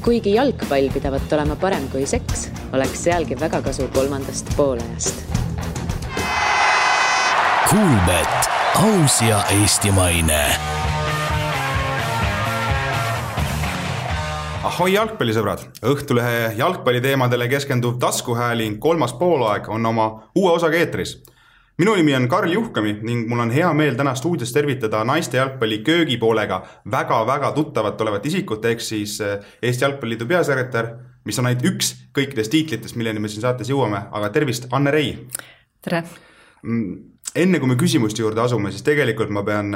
Kuigi jalgpall pidavat olema parem kui seks, oleks sealgi väga kasu kolmandast poolajast. Kuulbet, aus ja eestimaine. Ahoi jalgpallisõbrad! Õhtulehe jalgpalliteemadele keskenduv taskuhääling kolmas poolaeg on oma uue osaga eetris. Minu nimi on Karl Juhkami ning mul on hea meel täna stuudios tervitada naiste jalgpalli köögipoolega väga tuttavat olevat isikut, ehk siis Eesti Jalgpalliliidu peasekretär, mis on ainult üks kõikidest tiitlitest, milleni me siin saates jõuame, aga tervist, Anne Rei! Tere! Enne kui me küsimuste juurde asume, siis tegelikult ma pean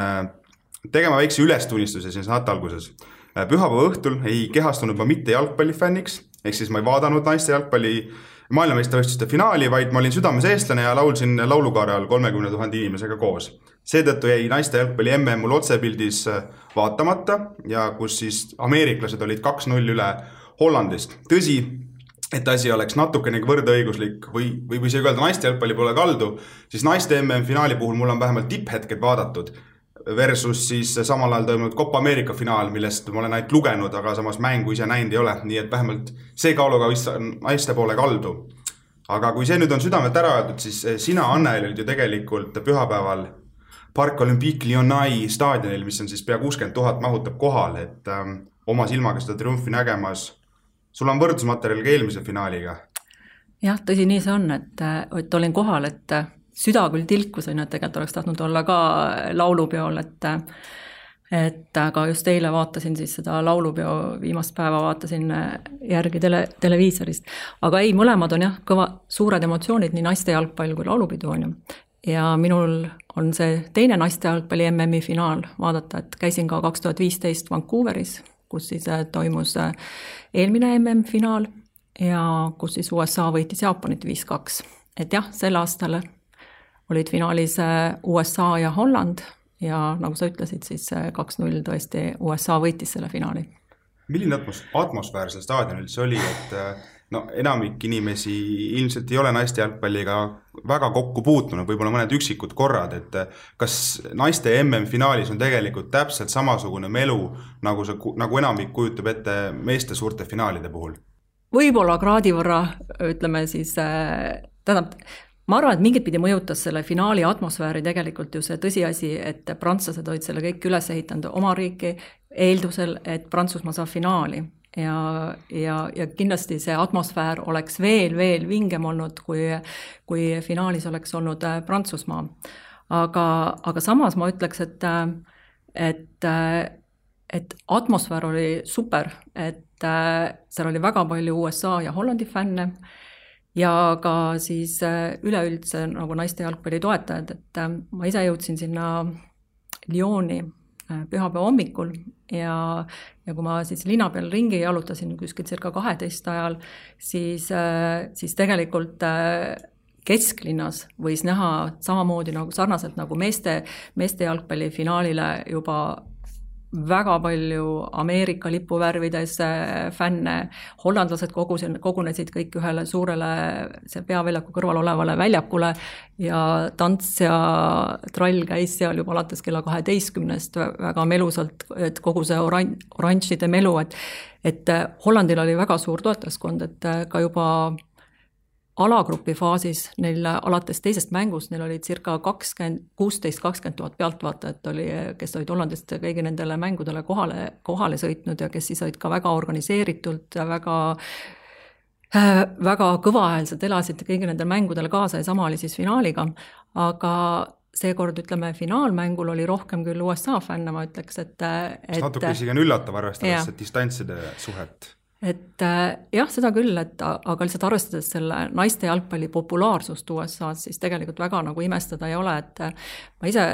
tegema väikse ülestunnistuse siin saate alguses. Pühapäeva õhtul ei kehastunud ma mitte jalgpallifänniks, ehk siis ma ei vaadanud naiste jalgpalli maailmameistrivõistluste finaali, vaid ma olin südames eestlane ja laulsin laulukaare all 30 000 inimesega koos. Seetõttu jäi naiste jalgpalli MM mul otsepildis vaatamata ja kus siis ameeriklased olid 2-0 üle Hollandist. Tõsi, et asi oleks natukenegi võrdõiguslik või see öelda naiste jalgpalli pole kaldu, siis naiste MM finaali puhul mul on vähemalt tipphetked vaadatud versus siis samal ajal toimunud Copa America finaal, millest ma olen ainult lugenud, aga samas mängu ise näinud ei ole, nii et vähemalt see kaaluga naiste poole kaldu. Aga kui see nüüd on südamet ära öeldud, siis sina, Anne, olid ju tegelikult pühapäeval Parc Olympique Lyonnais staadionil, mis on siis pea 60 000 mahutab kohal, et oma silmaga seda triumfi nägemas. Sul on võrdusmaterjal ka eelmise finaaliga? Jah, tõsi nii see on, et olin kohal, et süda küll tilkusin, et tegelikult oleks tahtnud olla ka laulupeol, et aga just eile vaatasin siis seda laulupeo viimast päeva, vaatasin järgi televiisorist. Aga ei, mõlemad on jah, suured emotsioonid, nii naiste jalgpall kui laulupidu on ju. Ja minul on see teine naiste jalgpalli MM-i finaal vaadata, et käisin ka 2015 Vancouveris, kus siis toimus eelmine MM-finaal ja kus siis USA võitis Jaapanit 5-2. Et jah, sel aastal olid finaalis USA ja Holland ja nagu sa ütlesid, siis 2-0 tõesti USA võitis selle finaali. Milline atmosfäär seal staadionil see oli, et enamik inimesi ilmselt ei ole naiste jalgpalliga väga kokku puutunud, võib-olla mõned üksikud korrad, et kas naiste MM-finaalis on tegelikult täpselt samasugune melu, nagu enamik kujutab ette meeste suurte finaalide puhul? Võib-olla kraadi võrra, ütleme siis, ma arvan, et mingit pidi mõjutas selle finaali atmosfääri tegelikult ju see tõsiasi, et prantslased olid selle kõik üles ehitanud oma riiki eeldusel, et Prantsusmaa saab finaali. Ja kindlasti see atmosfäär oleks veel vingem olnud, kui finaalis oleks olnud Prantsusmaa. Aga samas ma ütleks, et atmosfäär oli super, et seal oli väga palju USA ja Hollandi fänne, ja ka siis üleüldse nagu naiste jalgpalli toetajad, et ma ise jõudsin sinna Lyoni pühapäeva hommikul ja kui ma siis linna peal ringi jalutasin kuskil circa 12 ajal, siis tegelikult kesklinnas võis näha samamoodi nagu sarnaselt nagu meeste jalgpalli finaalile juba väga palju Ameerika lipuvärvides fänne, hollandlased kogunesid kõik ühele suurele see peaväljaku kõrval olevale väljakule ja tants ja trall käis seal juba alates kella 12 väga melusalt, et kogu see oranžide melu, et Hollandil oli väga suur toetajaskond, et ka juba alagrupi faasis neil alates teisest mängust, neil oli circa 16-20 000 pealtvaatajat, kes olid Hollandist kõigi nendele mängudele kohale sõitnud ja kes siis olid ka väga organiseeritult ja väga kõvahäälselt elasid kõigi nendele mängudele kaasa ja sama oli siis finaaliga, aga seekord, ütleme, finaalmängul oli rohkem küll USA fänne, ma ütleks, et natuke isegi on üllatav arvestades see distantside suhet. Et jah, seda küll, aga lihtsalt arvestades selle naiste jalgpalli populaarsust USA-s, siis tegelikult väga nagu imestada ei ole, et ma ise,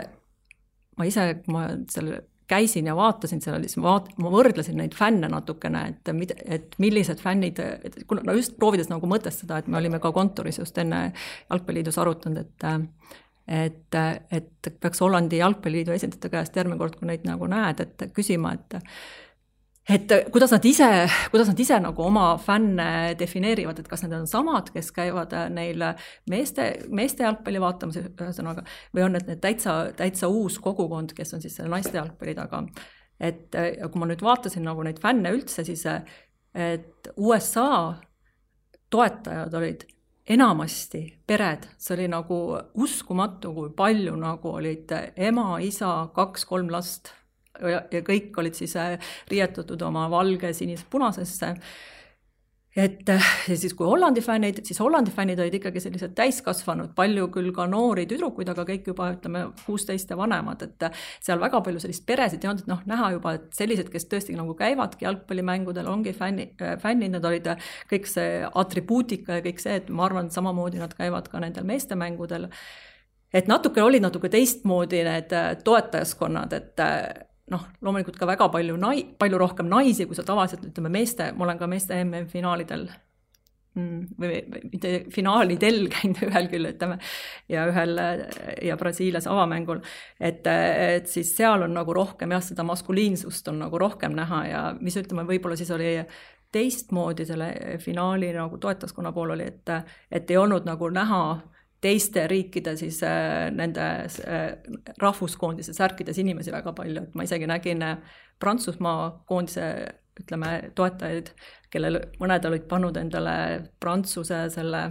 kui ma selle käisin ja vaatasin selle, siis ma võrdlesin neid fänne natukene, et millised fännid, just proovides nagu mõtestada, et me olime ka kontoris just enne jalgpalliliidus arutanud, et peaks Hollandi jalgpalliliidu esindajate käest järgmine kord, kui neid nagu näed, et küsima, et kuidas nad ise nagu oma fänne defineerivad, et kas need on samad, kes käivad neil meeste jalgpalli vaatamas ühesõnaga, või on need täitsa uus kogukond, kes on siis selle naiste jalgpalli taga. Et kui ma nüüd vaatasin nagu neid fänne üldse, siis et USA toetajad olid enamasti pered, see oli nagu uskumatu, kui palju nagu olid ema, isa, 2-3 last ja kõik olid siis riietatud oma valge, sinise, punasesse. Ja siis kui Hollandi fännid, siis Hollandi fännid olid ikkagi sellised täiskasvanud, palju küll ka noori tüdrukuid, aga kõik juba, ütleme, 16 ja vanemad, et seal väga palju sellist peresid ja on näha juba, et sellised, kes tõesti nagu käivadki jalgpallimängudel, ongi fännid, nad olid kõik see atribuutika ja kõik see, et ma arvan, samamoodi nad käivad ka nendel meestemängudel. Et natuke olid natuke teistmoodi need toetajaskonnad, et loomulikult ka väga palju rohkem naisi, kui sa tavaliselt, ütleme, ma olen ka meeste MM-finaalidel või mitte finaalidel käinud ühel küll, ütleme, ja Brasiilias avamängul, et siis seal on nagu rohkem seda maskuliinsust on nagu rohkem näha ja mis ütleme, võib-olla siis oli teistmoodi selle finaali nagu toetajaskonna pool oli, et ei olnud nagu näha teiste riikide siis nende rahvuskoondise särkides inimesi väga palju, et ma isegi nägin Prantsusmaa koondise, ütleme, toetajaid, kellel mõned olid pannud endale Prantsuse selle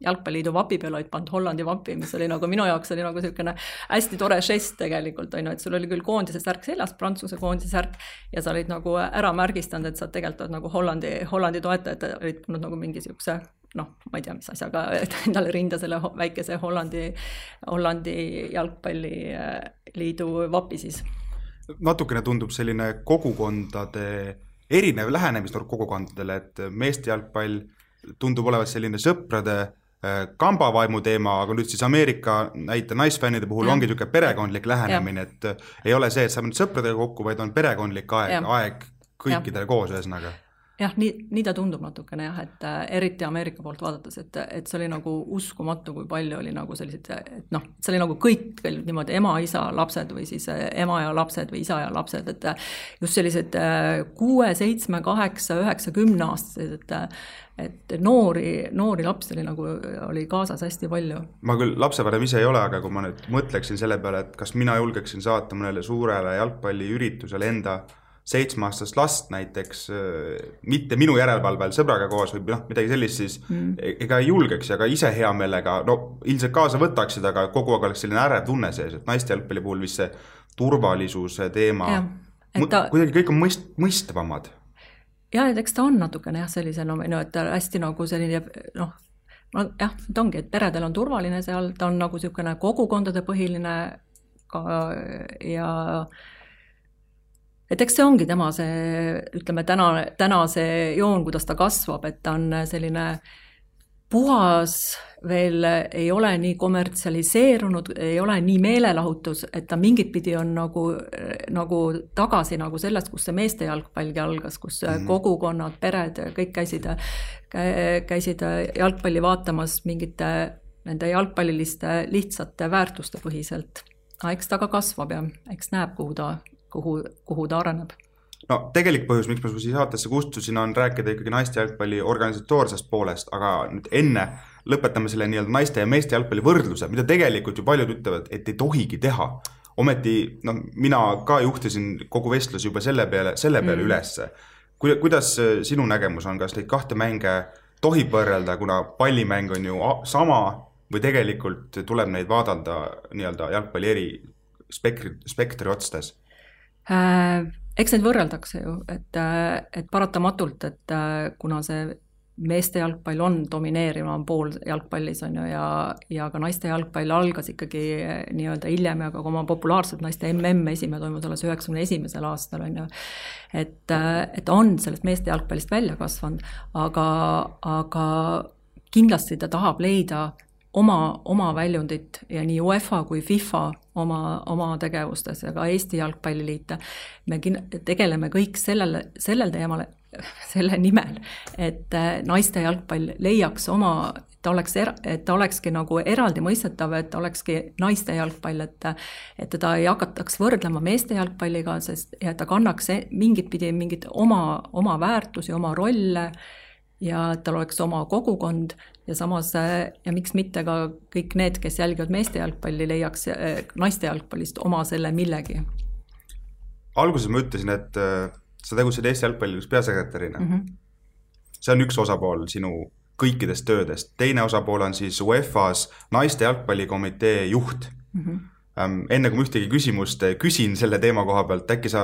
jalgpalliliidu vapi peale, olid pannud Hollandi vapi, mis oli nagu minu jaoks oli nagu selline hästi tore žest tegelikult, et sul oli küll koondise särk seljas, Prantsuse koondise särk ja sa olid nagu ära märgistanud, et sa tegelikult nagu Hollandi toetajad olid pannud nagu mingi siukse ma ei tea, mis asjaga endale rinda selle väikese Hollandi jalgpalliliidu vapi siis. Natukene tundub selline kogukondade, erinev lähenemisnurk kogukondadele, et meeste jalgpall tundub olevat selline sõprade kambavaimu teema, aga nüüd siis Ameerika näite naisfännide puhul ongi niisugune perekondlik lähenemine, et ei ole see, et saab nüüd sõpradega kokku, vaid on perekondlik aeg kõikidele koos ühesõnaga. Jah, nii ta tundub natukene, et eriti Ameerika poolt vaadates, et see oli nagu uskumatu, kui palju oli nagu sellised, et see oli nagu kõik niimoodi ema, isa, lapsed või siis ema ja lapsed või isa ja lapsed, et just sellised 6, 7, 8, 9, 10 aastased, et noori lapsi oli kaasas hästi palju. Ma küll lapsevanem ise ei ole, aga kui ma nüüd mõtleksin selle peale, et kas mina julgeksin saata mõnele suurele jalgpalliüritusele enda 7-aastast last näiteks, mitte minu järelevalvel sõbraga koos või midagi sellist, siis ega ei julgeks ja ka ise hea meelega, ilmselt kaasa võtaksid, aga kogu aeg oleks selline ärev tunne sees, et naiste jalgpalli puhul vist see turvalisuse teema, kuidagi kõik on mõistavamad. Ja, et eks ta on natukene sellise, et hästi nagu selline, ta ongi, et peredel on turvaline seal, ta on nagu selline kogukondade põhiline ka ja et eks see ongi tema see, ütleme, täna see joon, kuidas ta kasvab, et ta on selline puhas, veel ei ole nii kommertsialiseerunud, ei ole nii meelelahutus, et ta mingit pidi on nagu tagasi nagu sellest, kus see meeste jalgpalgi algas, kus kogukonnad, pered, kõik käisid jalgpalli vaatamas mingite nende jalgpalliliste lihtsate väärtuste põhiselt. Eks ta ka kasvab ja eks näeb, kuhu ta areneb. No tegelik põhjus, miks ma siia saatesse kustusin, on rääkida ikkagi naiste jalgpalli organisatoorsest poolest, aga nüüd enne lõpetame selle nii-öelda naiste ja meeste jalgpalli võrdluse, mida tegelikult ju paljud ütlevad, et ei tohigi teha. Ometi mina ka juhtisin kogu vestlus juba selle peale ülesse. Kuidas sinu nägemus on, kas neid kahte mänge tohib võrrelda, kuna pallimäng on ju sama või tegelikult tuleb neid vaadelda nii-öelda jalgpalli eri spektri otstes? Eks neid võrreldakse ju, et paratamatult, et kuna see meeste jalgpall on domineerivam pool jalgpallis on ju, ja ka naiste jalgpall algas ikkagi nii-öelda hiljem ja ka oma populaarselt naiste esimene toimus alles 91. aastal on ju, et on sellest meeste jalgpallist välja kasvanud, aga kindlasti ta tahab leida oma väljundit ja nii UEFA kui FIFA oma tegevustes ja ka Eesti jalgpalliliite. Me tegeleme kõik sellel teemal, selle nimel, et naiste jalgpall leiaks et ta olekski nagu eraldi mõistetav, et ta olekski naiste jalgpall, et teda ei hakataks võrdlema meeste jalgpalliga, sest ja ta kannaks mingit oma väärtusi, oma rolle ja tal oleks oma kogukond ja samas, ja miks mitte ka kõik need, kes jälgivad meeste jalgpalli, leiaks naiste jalgpallist oma selle millegi. Alguses ma ütlesin, et sa tegutsid Eesti jalgpalliliidus peasekretärina. See on üks osapool sinu kõikidest töödest. Teine osapool on siis UEFA's naiste jalgpallikomitee juht. Enne kui ühtegi küsimust küsin selle teema koha pealt, äkki sa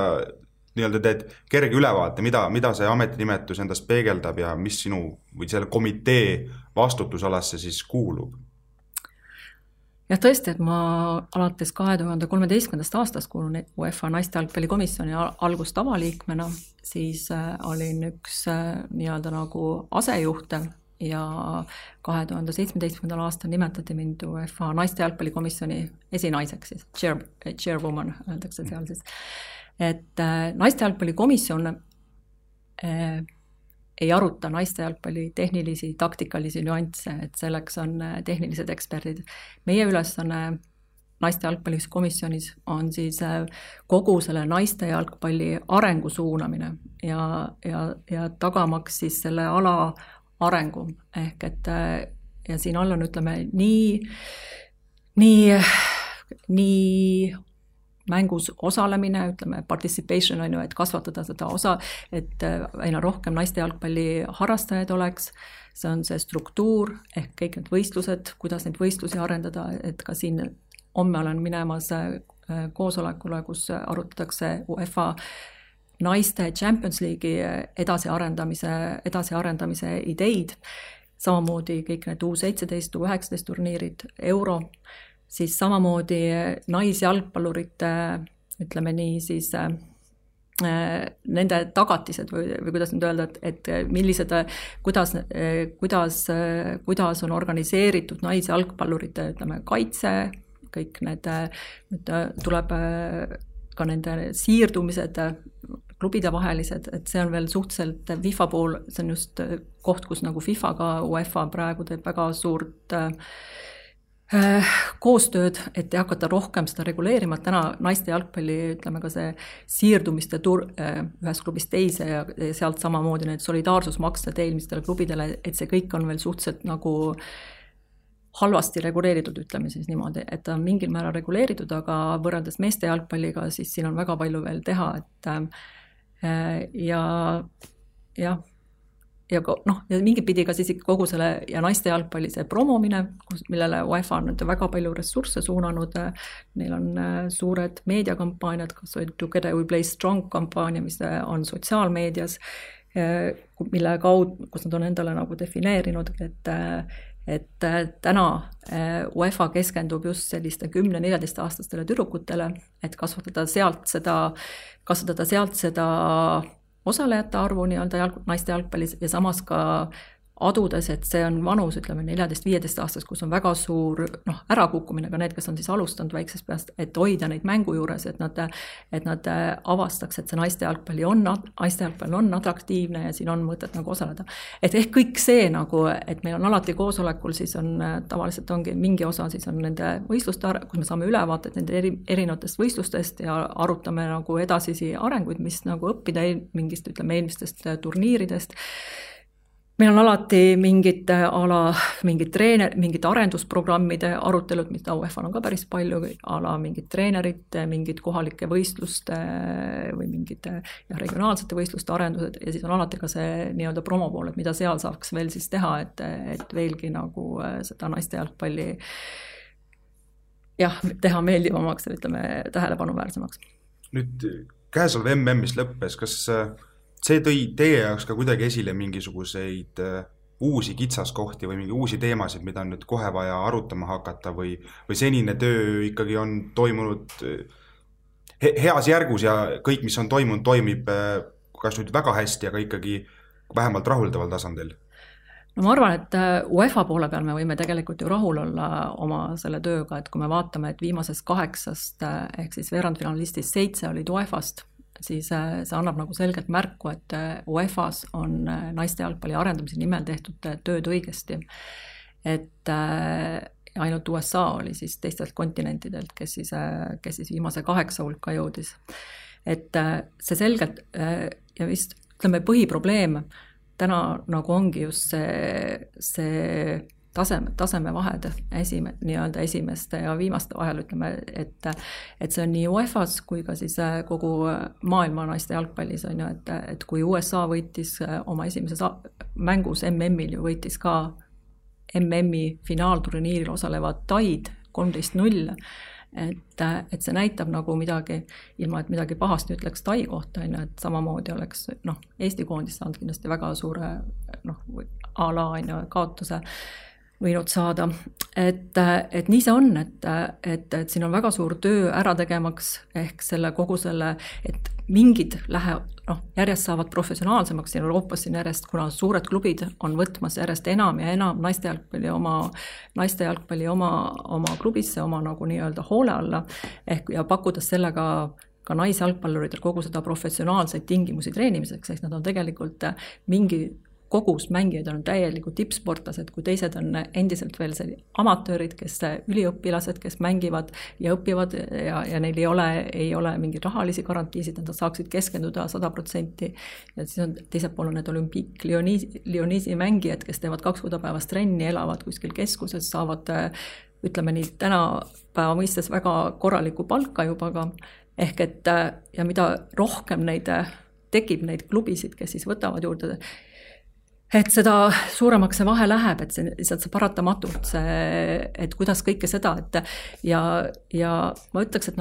nii-öelda teed kerge ülevaate, mida see ametinimetus endast peegeldab ja mis sinu või selle komitee vastutusalasse siis kuulub? Jah, tõesti, et ma alates 2013. aastast kuulun UEFA naiste jalgpallikomisjoni algust avaliikmena, siis olin üks nii-öelda nagu asejuhte ja 2017. aastal nimetati mind UEFA naiste jalgpallikomisjoni esinaiseks, siis chairwoman öeldakse seal siis. Et naiste jalgpallikomisjon ei aruta naiste jalgpalli tehnilisi, taktikalisi nüansse, et selleks on tehnilised eksperdid. Meie ülesanne naiste jalgpallikomisjonis on siis kogu selle naiste jalgpalli arengu suunamine ja tagamaks siis selle ala arengu. Ehk et ja siin all on, ütleme, nii mängus osalemine, ütleme participation on ju, et kasvatada seda osa, et aina rohkem naiste jalgpalli harrastajaid oleks, see on see struktuur ehk kõik need võistlused, kuidas neid võistlusi arendada, et ka siin homme olen minemas koosolekule, kus arutatakse UEFA naiste Champions League'i edasiarendamise ideid, samamoodi kõik need U17, U19 turniirid, Euro, siis samamoodi naisjalgpallurite, ütleme nii, siis nende tagatised või kuidas nüüd öelda, et millised, kuidas on organiseeritud naisjalgpallurite, ütleme, kaitse, kõik need, tuleb ka nende siirdumised, klubide vahelised, et see on veel suhteliselt FIFA pool, see on just koht, kus nagu FIFA ka UEFA praegu teeb väga suurt koostööd, et ei hakata rohkem seda reguleerima, et täna naiste jalgpalli, ütleme ka see siirdumiste ühest klubist teise ja sealt samamoodi need solidaarsusmaksed eelmistele klubidele, et see kõik on veel suhteliselt nagu halvasti reguleeritud, ütleme siis niimoodi, et ta on mingil määral reguleeritud, aga võrreldes meeste jalgpalliga, siis siin on väga palju veel teha, et ja mingit pidi ka siis kogu selle ja naiste jalgpalli see promomine, millele UEFA on väga palju ressursse suunanud, neil on suured meediakampaaniad, kas või Together We Play Strong kampaania, mis on sotsiaalmeedias, mille kaudu, kus nad on endale nagu defineerinud, et täna UEFA keskendub just selliste 10-14 aastastele tüdrukutele, et kasvatada sealt seda osalejate arvu nii-öelda naiste jalgpallis ja samas ka adudes, et see on vanus, ütleme 14-15 aastas, kus on väga suur ärakukkumine, ka need, kes on siis alustanud väiksest peast, et hoida neid mängu juures, et nad avastaks, et see naiste jalgpall on atraktiivne ja siin on mõtet nagu osaleda. Et ehk kõik see nagu, et meil on alati koosolekul, siis on tavaliselt ongi mingi osa, siis on nende võistluste, kus me saame ülevaated nende erinevatest võistlustest ja arutame nagu edasisi arenguid, mis nagu õppida mingist, ütleme, eelmistest turniiridest. Meil on alati mingid arendusprogrammide arutelud, mida UEFA on ka päris palju, mingid treenerid, mingid kohalike võistluste või mingid regionaalsete võistluste arendused ja siis on alati ka see nii-öelda promopool, et mida seal saaks veel siis teha, et veelgi nagu seda naiste jalgpalli teha meeldivamaks ja ütleme tähelepanuväärsemaks. Nüüd käesoleva MM-is lõppes, kas see tõi teie jaoks ka kuidagi esile mingisuguseid uusi kitsaskohti või mingi uusi teemasid, mida on nüüd kohe vaja arutama hakata või senine töö ikkagi on toimunud heas järgus ja kõik, mis on toimunud, toimib kas nüüd väga hästi, aga ikkagi vähemalt rahuldaval tasandil? No ma arvan, et UEFA poole peal me võime tegelikult ju rahul olla oma selle tööga, et kui me vaatame, et viimasest 8 ehk siis veerandfinalistist 7 olid UEFA-st, siis see annab nagu selgelt märku, et UEFA-s on naiste jalgpalli arendamise nimel tehtud tööd õigesti. Et ainult USA oli siis teistelt kontinentidelt, kes siis viimase 8 hulka jõudis. Et see selgelt ja vist ütleme põhiprobleem täna nagu ongi just see tasemevahed nii-öelda esimeste ja viimaste vahel, ütleme, et see on nii UEFA-s kui ka siis kogu maailma naiste jalgpallis on ju, et kui USA võitis oma esimeses mängus MM-il ju võitis ka MM-i finaalturniiril osalevad Taid 13-0, et see näitab nagu midagi, ilma et midagi pahasti ütleks Tai kohta, et samamoodi oleks Eesti koondis saanud kindlasti väga suure a la kaotuse võinud saada. Et nii see on, et siin on väga suur töö ära tegemaks ehk kogu selle, et mingid järjest saavad professionaalsemaks siin Euroopas siin järjest, kuna suured klubid on võtmas järjest enam ja enam naiste jalgpalli oma klubisse, oma nagu nii-öelda hoole alla ja pakkudes sellega ka naisjalgpalluridel kogu seda professionaalseid tingimusi treenimiseks, ehk nad on tegelikult mingi kogus mängijaid on täielikult tippsportlased, kui teised on endiselt veel amatöörid, kes üliõpilased, kes mängivad ja õpivad ja neil ei ole mingeid rahalisi garantiisid, nad saaksid keskenduda 100%. Ja siis on teiselt pool need Olympique Lyonisi mängijad, kes teevad 2 korda päevas trenni, elavad kuskil keskuses, saavad, ütleme nii, tänapäeva mõistes väga korralikku palka juba ka. Ehk et ja mida rohkem tekib neid klubisid, kes siis võtavad juurde, et seda suuremaks see vahe läheb, et see paratamatult, et kuidas kõike seda, ja ma ütleks,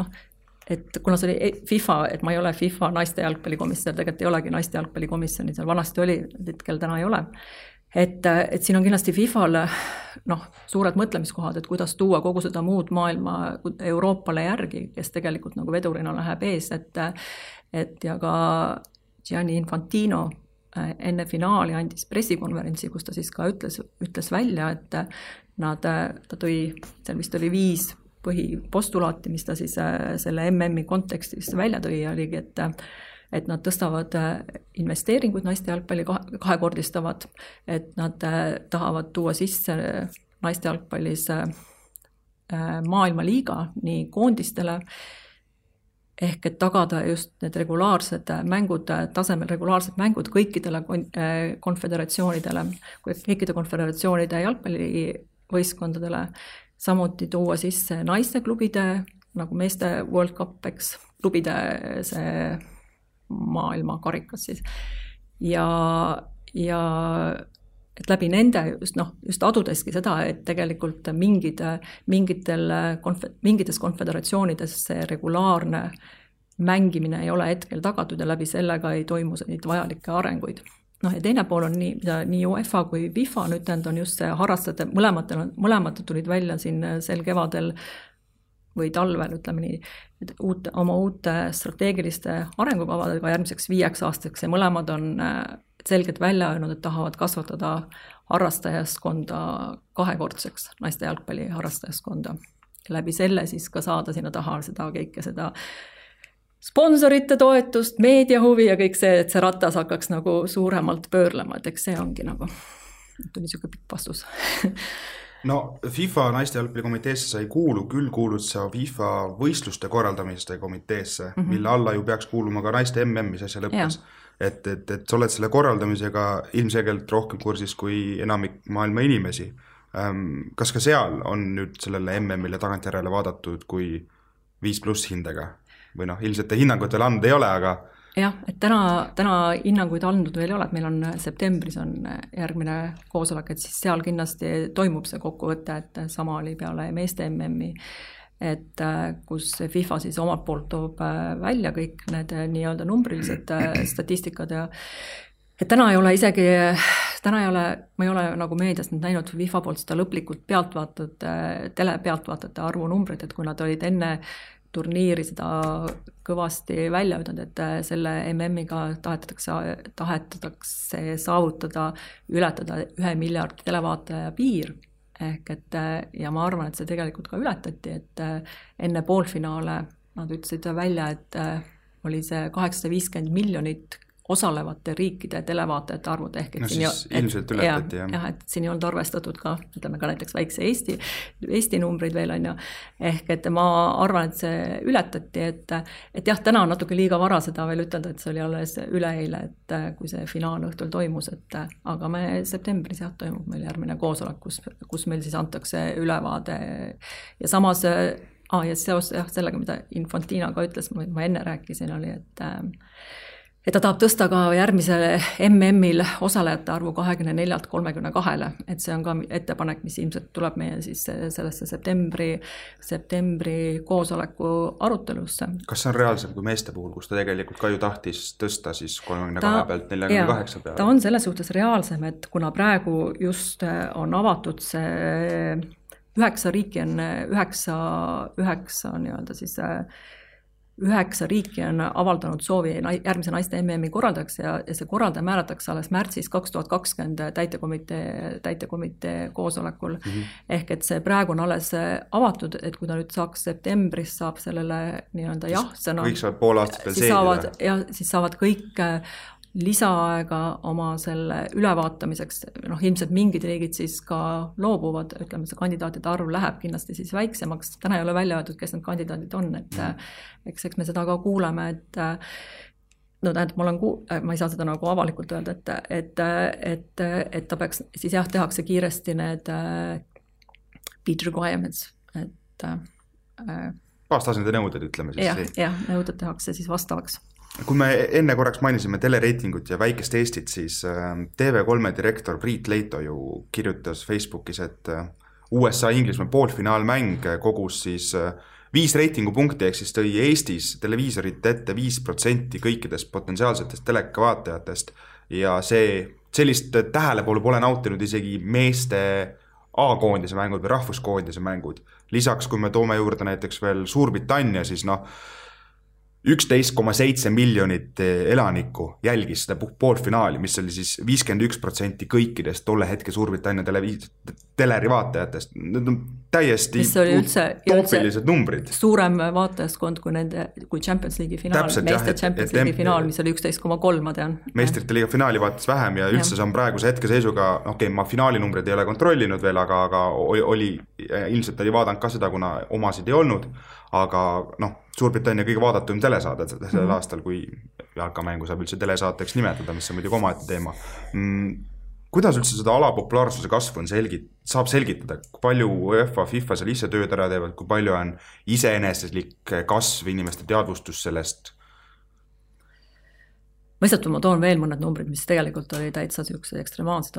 et kuna see oli FIFA, et ma ei ole FIFA naiste jalgpallikomisjon, tegelikult ei olegi naiste jalgpallikomisjoni, seal vanasti oli, hetkel täna ei ole, et siin on kindlasti FIFAl suured mõtlemiskohad, et kuidas tuua kogu seda muud maailma Euroopale järgi, kes tegelikult nagu vedurina läheb ees, et ja ka Gianni Infantino enne finaali andis pressikonverentsi, kus ta siis ka ütles välja, et ta tõi, seal vist oli 5 põhipostulaati, mis ta siis selle MM-i kontekstis välja tõi, oligi, et nad tõstavad investeeringuid naiste jalgpalli kahekordistavad, et nad tahavad tuua sisse naiste jalgpallis maailmaliiga nii koondistele, ehk et tagada just need regulaarsed mängud, tasemel regulaarsed mängud kõikidele konföderatsioonidele, kõikide konföderatsioonide jalgpallivõistkondadele, samuti tuua sisse naiste-klubide, nagu meeste World Cup, eks, klubide see maailma karikas siis. Ja et läbi nende just adudeski seda, et tegelikult mingites konföderatsioonides see regulaarne mängimine ei ole hetkel tagatud ja läbi sellega ei toimu neid vajalikke arenguid. Ja teine pool on nii UEFA kui FIFA nüüd on just see harrastajate, mõlemad tulid välja siin sel kevadel või talvel, ütleme nii, oma uute strateegiliste arengukavadega järgmiseks 5 aastaks ja mõlemad on selgelt välja öelnud, et tahavad kasvatada harrastajaskonda 2-kordseks, naiste jalgpalli harrastajaskonda. Läbi selle siis ka saada sinna taha seda sponsorite toetust, meediahuvi ja kõik see, et see ratas hakkaks nagu suuremalt pöörlema, et eks see ongi nagu, tuli siuke pikk vastus. No FIFA naiste jalgpallikomiteesse sa ei kuulu, küll kuulud sa FIFA võistluste korraldamiste komiteesse, mille alla ju peaks kuuluma ka naiste MM-is asja lõppes. Et sa oled selle korraldamisega ilmselgelt rohkem kursis kui enamik maailma inimesi. Kas ka seal on nüüd sellele MM-ile tagantjärele vaadatud kui 5+ hindega? Või ilmselt hinnangut veel andnud ei ole, aga... Jah, et täna hinnanguid andnud veel ei ole, et meil on septembris on järgmine koosolek, et siis seal kindlasti toimub see kokkuvõte, et sama oli peale meeste MM-i, et kus FIFA siis omalt poolt toob välja kõik need nii-öelda numbrilised statistikad ja et täna ei ole ma ei ole nagu meediast näinud FIFA poolt seda lõplikult telepealtvaatajate arvu numbrit, et kui nad olid enne turniiri seda kõvasti välja ütlenud, et selle MM-iga tahetatakse saavutada, ületada 1 miljardi televaataja piir. Ehk et, ja ma arvan, et see tegelikult ka ületati, et enne poolfinaale nad ütlesid välja, et oli see 850 miljonit osalevate riikide televaatajate arvud ehk no siis ilmselt ületati, jah, et siin ei olnud arvestatud ka, ütleme ka näiteks väikse Eesti numbrid veel on ju, ehk et ma arvan, et see ületati, et jah, täna on natuke liiga vara seda veel ütelda, et see oli alles üleeile, et kui see finaal õhtul toimus, et aga me septembris jah, toimub meil järgmine koosolek, kus meil siis antakse ülevaade ja samas ja seos sellega, mida Infantina ka ütles, ma enne rääkisin, oli, et ta tahab tõsta ka järgmisele MM-il osalejate arvu 24-lt 32-le, et see on ka ettepanek, mis ilmselt tuleb meie siis sellesse septembri koosoleku arutelusse. Kas see on reaalsem kui meeste puhul, kus ta tegelikult ka ju tahtis tõsta siis 32 pealt 48 peale? Ta on selles suhtes reaalsem, et kuna praegu just on avatud see 9 riiki on 9 nii-öelda siis 9 riiki on avaldanud soovi järgmise naiste MM-i korraldajaks ja see korraldaja määratakse alles märtsis 2020 täitekomitee koosolekul. Ehk et see praegu on alles avatud, et kui ta nüüd saaks septembris, saab sellele nii-öelda jah-sõna. Kõik saavad pool aastat veel seedida. Ja siis saavad kõik lisaaega oma selle ülevaatamiseks, ilmselt mingid riigid siis ka loobuvad, ütleme see kandidaatide arv läheb kindlasti siis väiksemaks, täna ei ole välja öeldud, kes need kandidaadid on, et eks me seda ka kuuleme, et tähendab, ma ei saa seda nagu avalikult öelda, et ta peaks, siis jah, tehakse kiiresti need bid requirements, et baastasandi nõuded, ütleme siis. Jah, nõuded tehakse siis vastavaks. Kui me enne korraks mainisime telereitingut ja väikest Eestit, siis TV3 direktor Priit Leito ju kirjutas Facebookis, et USA-Inglismaa poolfinaalmäng kogus siis 5 reitingupunkti, ehk siis tõi Eestis televiisorite ette 5% kõikidest potentsiaalsetest telekavaatajatest ja sellist tähelepolu pole nautinud isegi meeste A-koondise mängud või rahvuskoondise mängud. Lisaks, kui me toome juurde näiteks veel Suurbritannia, siis 11,7 miljonit elanikku jälgis seda poolfinaali, mis oli siis 51% kõikidest tolle hetke Suurbritannia teleri vaatajatest. Need on täiesti toopilised numbrid. Suurem vaatajaskond kui Champions League'i finaal, meeste Champions League'i finaal, mis oli 11,3, ma tean. Meistrite liiga finaali vaatas vähem ja üldse see on praeguse hetkeseisuga, ma finaali numbrid ei ole kontrollinud veel, aga ilmselt oli vaadanud ka seda, kuna omasid ei olnud, aga Suurbritannia kõige vaadatum telesaade sellel aastal, kui jalkamängu saab üldse telesaateks nimetada, mis on muidugi omaette teema. Kuidas üldse seda alapopulaarsuse kasvu saab selgitada, kui palju UEFA, FIFA seal ise tööd ära teevad, kui palju on iseeneslik kasv, inimeste teadvustus sellest? Ma toon veel mõned numbrid, mis tegelikult oli täitsa sellised ekstremaalsed,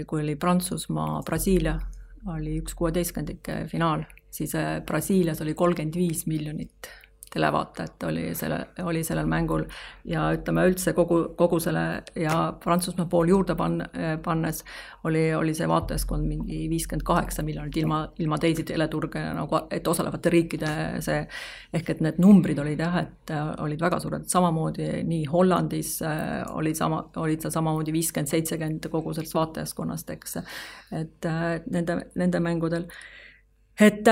kui oli Prantsusmaa, Brasiilia, oli 1/16 finaal, siis Brasiilias oli 35 miljonit televaatajat oli sellel mängul ja ütleme üldse kogu selle ja Prantsusmaa pool juurde pannes oli see vaatajaskond mingi 58 miljonit ilma teisi teleturge, nagu, et osalevate riikide see, ehk et need numbrid olid et olid väga suured, samamoodi nii Hollandis olid seal samamoodi 50-70 kogu sellest vaatajaskonnast, eks, et nende mängudel, et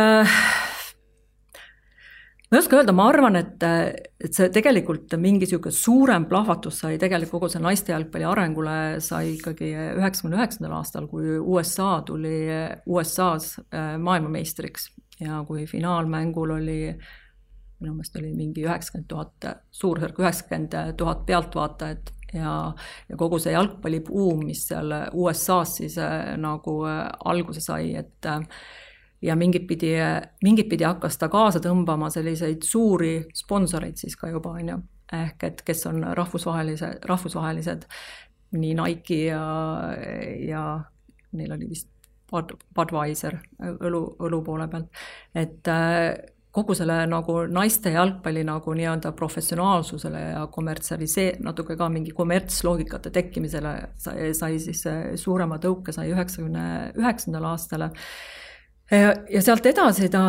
ma ei oska öelda, ma arvan, et see tegelikult mingi suurem plahvatus sai tegelikult kogu see naiste jalgpalli arengule sai ikkagi 99. aastal, kui USA tuli USA-s maailmameistriks ja kui finaalmängul oli, minu meelest oli mingi 90 000, suurusjärk 90 000 pealtvaatajat ja kogu see jalgpallibuum, mis seal USA-s siis nagu alguse sai, et ja mingit pidi hakkas ta kaasa tõmbama selliseid suuri sponsoreid siis ka juba, ehk et kes on rahvusvahelised nii Nike ja neil oli vist Budweiser õlu poole pealt, et kogu selle nagu naiste jalgpalli nagu nii-öelda professionaalsusele ja natuke ka mingi kommertsloogikate tekkimisele sai siis suurema tõuke sai 99. aastale. Ja sealt edasi ta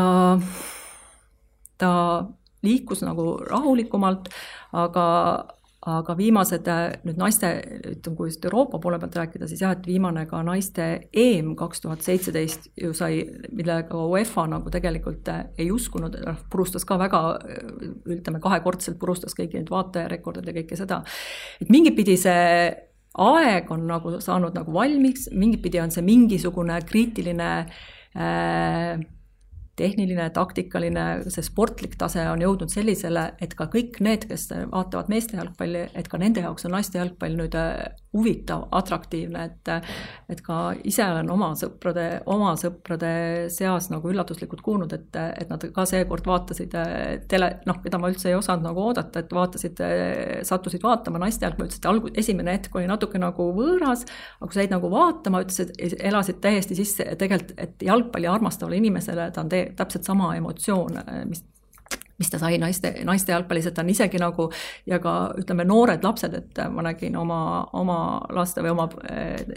liikus nagu rahulikumalt, aga aga viimased nüüd naiste, ütleme, kui Euroopa poole pealt rääkida, siis jah, et viimane ka naiste EM 2017 ju sai, millega UEFA nagu tegelikult ei uskunud, purustas ka väga, ütleme, kahekordselt purustas kõiki neid vaatajarekordid ja kõike seda. Et mingit pidi see aeg on nagu saanud nagu valmiks, mingit pidi on see mingisugune kriitiline tehniline, taktikaline, see sportlik tase on jõudnud sellisele, et ka kõik need, kes vaatavad meeste jalgpalli, et ka nende jaoks on naiste jalgpall nüüd huvitav, atraktiivne, et ka ise olen oma sõprade seas nagu üllatuslikult kuulnud, et nad ka seekord vaatasid keda ma üldse ei osanud nagu oodata, et sattusid vaatama naiste jalgpalli, ütlesid, esimene hetk oli natuke nagu võõras, aga kui said nagu vaatama, ütlesid, elasid täiesti sisse, tegelikult, et jalgpalli armastavale inimesele ta on täpselt sama emotsioon, mis ta sai naiste jalgpallis, et ta on isegi nagu, ja ka ütleme noored lapsed, et ma nägin oma laste või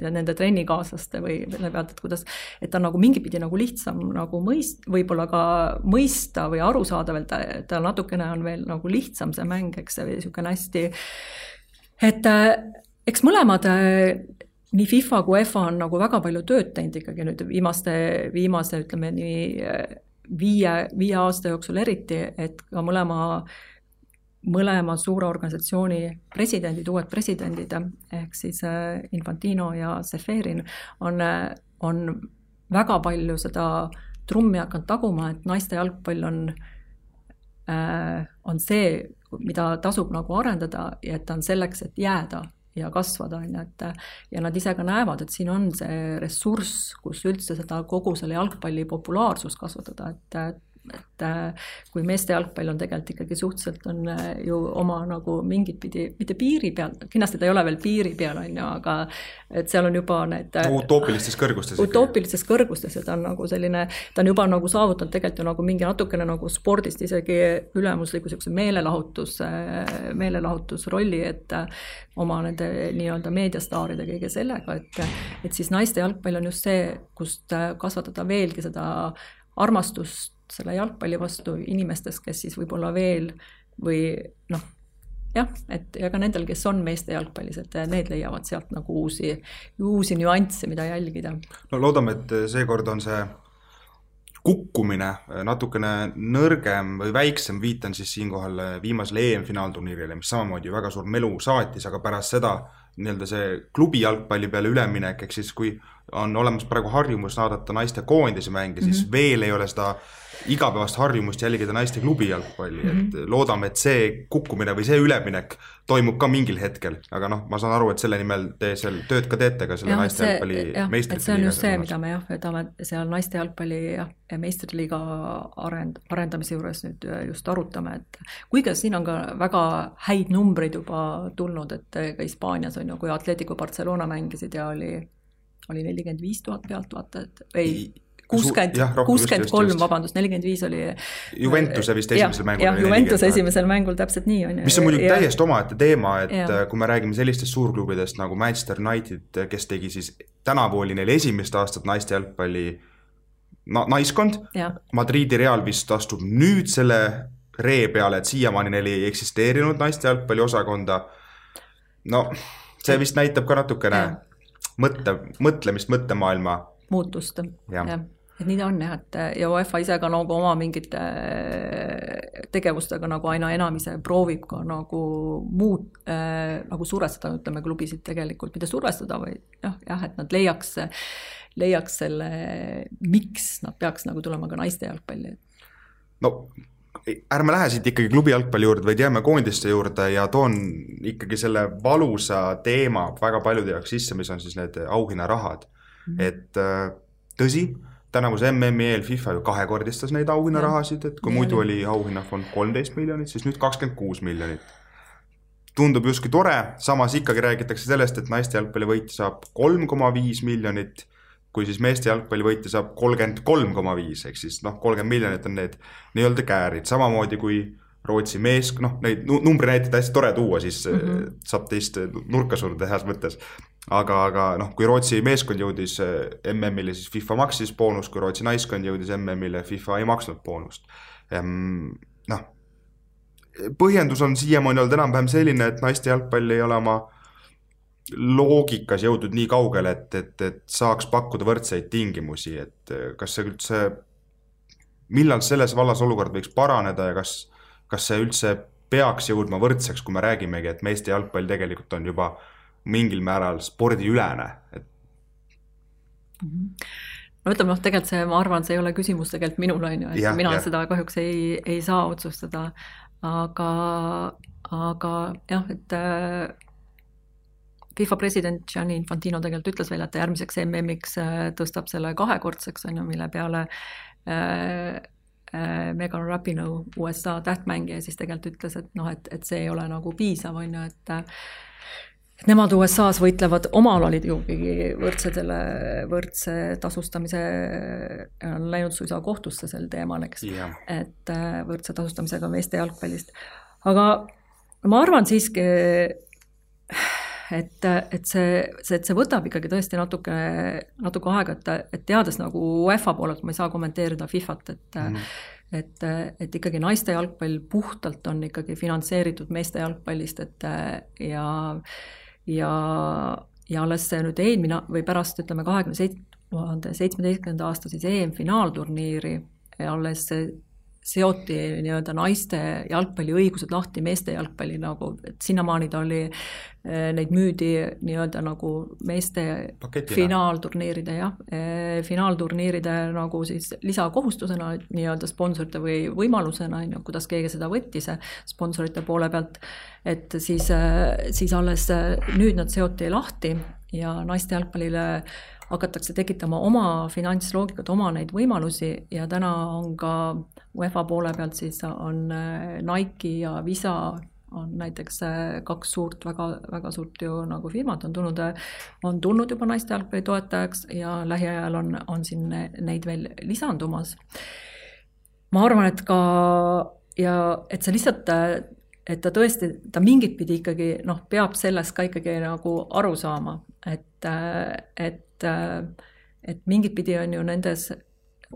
nende trennikaaslaste või selle pealt, et kuidas, et ta on nagu mingipidi nagu lihtsam nagu võib-olla ka mõista või aru saada veel, ta natukene on veel nagu lihtsam see mäng, eks see niisugune hästi, et eks mõlemad nii FIFA kui UEFA on nagu väga palju tööd teinud ikkagi nüüd viimase ütleme nii viie aasta jooksul eriti, et ka mõlema suure organisatsiooni uued presidendid, ehk siis Infantino ja Seferin on väga palju seda trummi hakanud taguma, et naiste jalgpall on see, mida tasub nagu arendada ja et ta on selleks, et jääda ja kasvada, ja nad ise ka näevad, et siin on see ressurss, kus üldse seda kogu selle jalgpalli populaarsust kasvatada, et kui meeste jalgpall on tegelikult ikkagi suhteliselt on ju oma nagu mingit pidi, mitte piiri peal, kindlasti ta ei ole veel piiri peal, aga et seal on juba need utoopilistes kõrgustes, ja ta on nagu selline, ta on juba nagu saavutanud tegelikult ju nagu mingi natukene nagu spordist isegi ülemusliku meelelahutusrolli, et oma nende nii-öelda meediastaaride kõige sellega, et siis naiste jalgpall on just see, kust kasvatada veelgi seda armastust selle jalgpalli vastu inimestes, kes siis võib-olla veel või et ja ka nendel, kes on meeste jalgpallis, et need leiavad sealt nagu uusi nüansse, mida jälgida. No loodame, et seekord on see kukkumine natukene nõrgem või väiksem, viitan siis siinkohal viimasele EM-finaalturniirile, mis samamoodi väga suur melu saatis, aga pärast seda nii-öelda see klubi jalgpalli peale üleminek, ehk siis kui on olemas praegu harjumus naadata naiste koondise mänge, siis veel ei ole seda igapäevast harjumust jälgida naiste klubi jalgpalli, et loodame, et see kukkumine või see üleminek toimub ka mingil hetkel, aga ma saan aru, et selle nimel te seal tööd ka teete ka selle naiste jalgpalli meistrite liiga. See on just see, mida me võtame seal naiste jalgpalli ja meistrite liiga arendamise juures nüüd just arutame, et kuigi siin on ka väga häid numbreid juba tulnud, et ka Hispaanias on ju, kui Atletico Barcelona mängisid ja oli 45,000 pealtvaatajat või 63, vabandust, 45 oli Juventuse vist esimesel mängul. Jah, Juventuse esimesel mängul täpselt nii on. Mis on muidugi täiesti omaette teema, et kui me räägime sellistest suurklubidest nagu Manchester United, kes tegi siis tänavu oli neil esimest aastat naiste jalgpalli naiskond, Madridi Real vist astub nüüd selle ree peale, et siiamaani neil ei eksisteerinud naiste jalgpalli osakonda. See vist näitab ka natukene mõtlemist, mõttemaailma muutust, et nii ta on et ja UEFA ise ka nagu oma mingite tegevustega nagu aina enam ise proovib ka nagu nagu survestada, ütleme, klubisid tegelikult, mitte survestada, või et nad leiaks selle, miks nad peaks nagu tulema ka naiste jalgpalli. Ärme lähe siit ikkagi klubi jalgpalli juurde, vaid jääme koondiste juurde ja toon ikkagi selle valusa teema väga paljude jaoks sisse, mis on siis need auhinnarahad. Et tõsi, tänavuse MM-i eel FIFA ju kahekordistas neid auhinnarahasid, et kui muidu oli auhinnafond 13 miljonit, siis nüüd 26 miljonit. Tundub justkui tore, samas ikkagi räägitakse sellest, et naiste jalgpalli võitja saab 3,5 miljonit, kui siis meeste jalgpalli võitja saab 33,5, ehk siis 30 miljonit on need nii-öelda käärid, samamoodi kui Rootsi mees, neid numbri näiteid hästi tore tuua, siis saab teist nurka surda heas mõttes. Aga kui Rootsi meeskond jõudis MM-ile, siis FIFA maksis boonus, kui Rootsi naiskond jõudis MM-ile, FIFA ei maksnud boonust. põhjendus on siiamaani olnud enam-vähem selline, et naiste jalgpall ei ole oma loogikas jõudnud nii kaugele, et saaks pakkuda võrdseid tingimusi, et kas see üldse, millal selles vallas olukord võiks paraneda ja kas see üldse peaks jõudma võrdseks, kui me räägimegi, et meeste jalgpall tegelikult on juba mingil määral spordiülene. No ütleme, tegelikult see, ma arvan, see ei ole küsimus tegelikult minul, et mina seda kahjuks ei saa otsustada, aga jah, et FIFA president Gianni Infantino tegelikult ütles veel, et järgmiseks MM-iks tõstab selle 2-kordseks, mille peale Megan Rapinoe, USA tähtmängija, siis tegelikult ütles, et see ei ole nagu piisav, et nemad USA-s võitlevad omal olid juhigi võrdse tasustamise, on läinud suisa kohtusse sel teemal, eks, et võrdse tasustamisega meeste jalgpallist. Aga ma arvan siiski, et see võtab ikkagi tõesti natuke aega, et teades nagu UEFA poolelt, ma ei saa kommenteerida FIFAt, et ikkagi naiste jalgpall puhtalt on ikkagi finantseeritud meeste jalgpallist, ja alles see nüüd eelmine või pärast, ütleme, 2017. aasta siis EM-finaalturniiri alles seoti nii-öelda naiste jalgpalli õigused lahti meeste jalgpalli nagu, et sinnamaani ta oli, neid müüdi nii-öelda nagu meeste finaalturniiride, finaalturniiride nagu siis lisakohustusena nii-öelda sponsorite või võimalusena, kuidas keegi seda võttis sponsorite poole pealt, et siis alles nüüd nad seoti lahti ja naiste jalgpallile hakatakse tekitama oma finantsloogikat, oma neid võimalusi ja täna on ka UEFA poole pealt siis on Nike ja Visa on näiteks 2 suurt, väga suurt ju nagu firmat on tulnud juba naiste jalgpalli toetajaks ja lähiajal on siin neid veel lisandumas. Ma arvan, et ka ja et see lihtsalt et ta tõesti, ta mingit pidi ikkagi peab sellest ka ikkagi nagu aru saama, et mingit pidi on ju nendes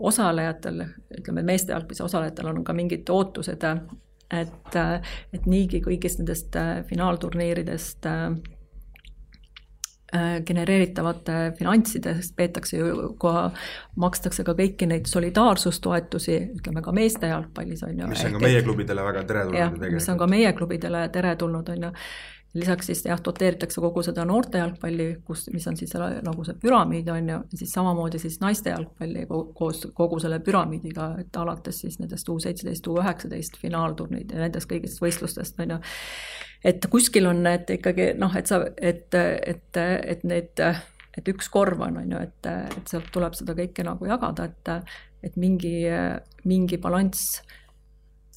osalejatel, ütleme meeste jalgpallis osalejatel on ka mingid ootused, et niigi kõigist nendest finaalturniiridest genereeritavate finantsidest peetakse ju, makstakse ka kõiki neid solidaarsustoetusi, ütleme ka meeste jalgpallis on ju. Mis on ka meie klubidele väga teretulnud. Mis on ka meie klubidele teretulnud on ju. Lisaks siis doteeritakse kogu seda noorte jalgpalli, mis on siis nagu see püramiid on ju, ja siis samamoodi siis naiste jalgpalli kogu selle püramiidiga, et alates siis nendest U17, U19 finaalturniid ja nendest kõigist võistlustest on ju. Et kuskil on need ikkagi, et üks korv on ju, et sealt tuleb seda kõike nagu jagada, et mingi balanss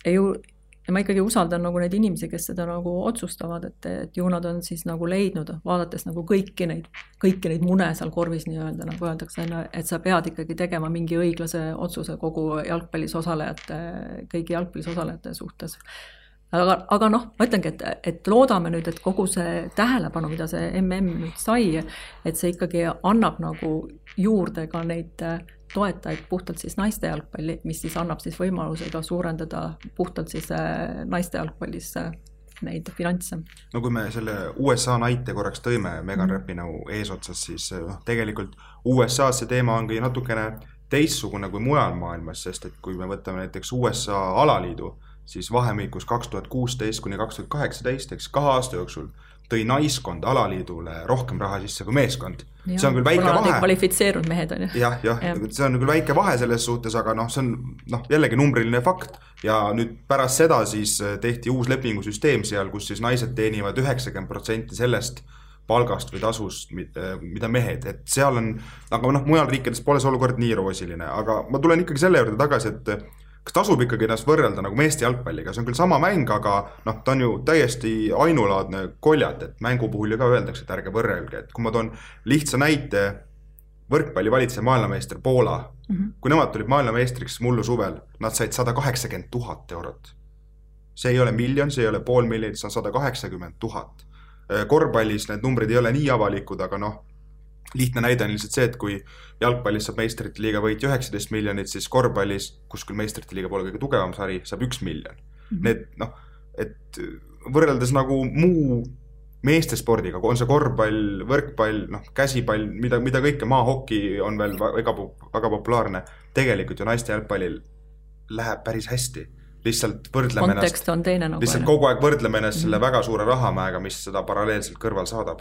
ei ju. Ja ma ikkagi usaldan nagu neid inimesi, kes seda nagu otsustavad, et ju nad on siis nagu leidnud, vaadates nagu kõiki neid mune seal korvis nii-öelda, nagu öeldakse, et sa pead ikkagi tegema mingi õiglase otsuse kogu jalgpallis osalejate, kõigi jalgpallis osalejate suhtes. Aga ma ütlengi, et loodame nüüd, et kogu see tähelepanu, mida see MM nüüd sai, et see ikkagi annab nagu juurde ka neid toetajaid puhtalt siis naiste jalgpalli, mis siis annab siis võimaluse ka suurendada puhtalt siis naiste jalgpallis neid finantse. No kui me selle USA näite korraks tõime Megan Rapinoe eesotsas, siis tegelikult USA see teema ongi natukene teistsugune kui mujal maailmas, sest et kui me võtame näiteks USA alaliidu, siis vahemikus 2016 kuni 2018, eks 2 aasta jooksul tõi naiskond alaliidule rohkem raha sisse kui meeskond. Ja, see on küll väike vahe. Kvalifitseerunud mehed on ju. Jah, see on küll väike vahe selles suhtes, aga see on jällegi numbriline fakt. Ja nüüd pärast seda siis tehti uus lepingusüsteem seal, kus siis naised teenivad 90% sellest palgast või tasust, mida mehed. Et seal on, aga mujal riikides pole see olukord nii roosiline. Aga ma tulen ikkagi selle juurde tagasi, et kas tasub ikkagi ennast võrrelda nagu meeste jalgpalliga, see on küll sama mäng, aga ta on ju täiesti ainulaadne koljat, et mängu puhul ju ka öeldakse, et ärge võrrelge, et kui ma toon lihtsa näite, võrkpalli valitseja maailmameister Poola, kui nemad tulid maailmameistriks mullu suvel, nad said 180 000 eurot. See ei ole miljon, see ei ole pool miljonit, see on 180 000. Korvpallis need numbrid ei ole nii avalikud, aga lihtne näide on lihtsalt see, et kui jalgpallis saab meistrite liiga võitja 19 miljonit, siis korvpallis, kus küll meistrite liiga pole kõige tugevam sari, saab 1 miljon. Need, et võrreldes nagu muu meestespordiga, on see korvpall, võrkpall, käsipall, mida kõike, maahoki on veel väga populaarne, tegelikult ju naiste jalgpallil läheb päris hästi. Lihtsalt võrdleme kontekst on teine nagu. Lihtsalt kogu aeg võrdleme ennast selle väga suure rahamäega, mis seda paralleelselt kõrval saadab.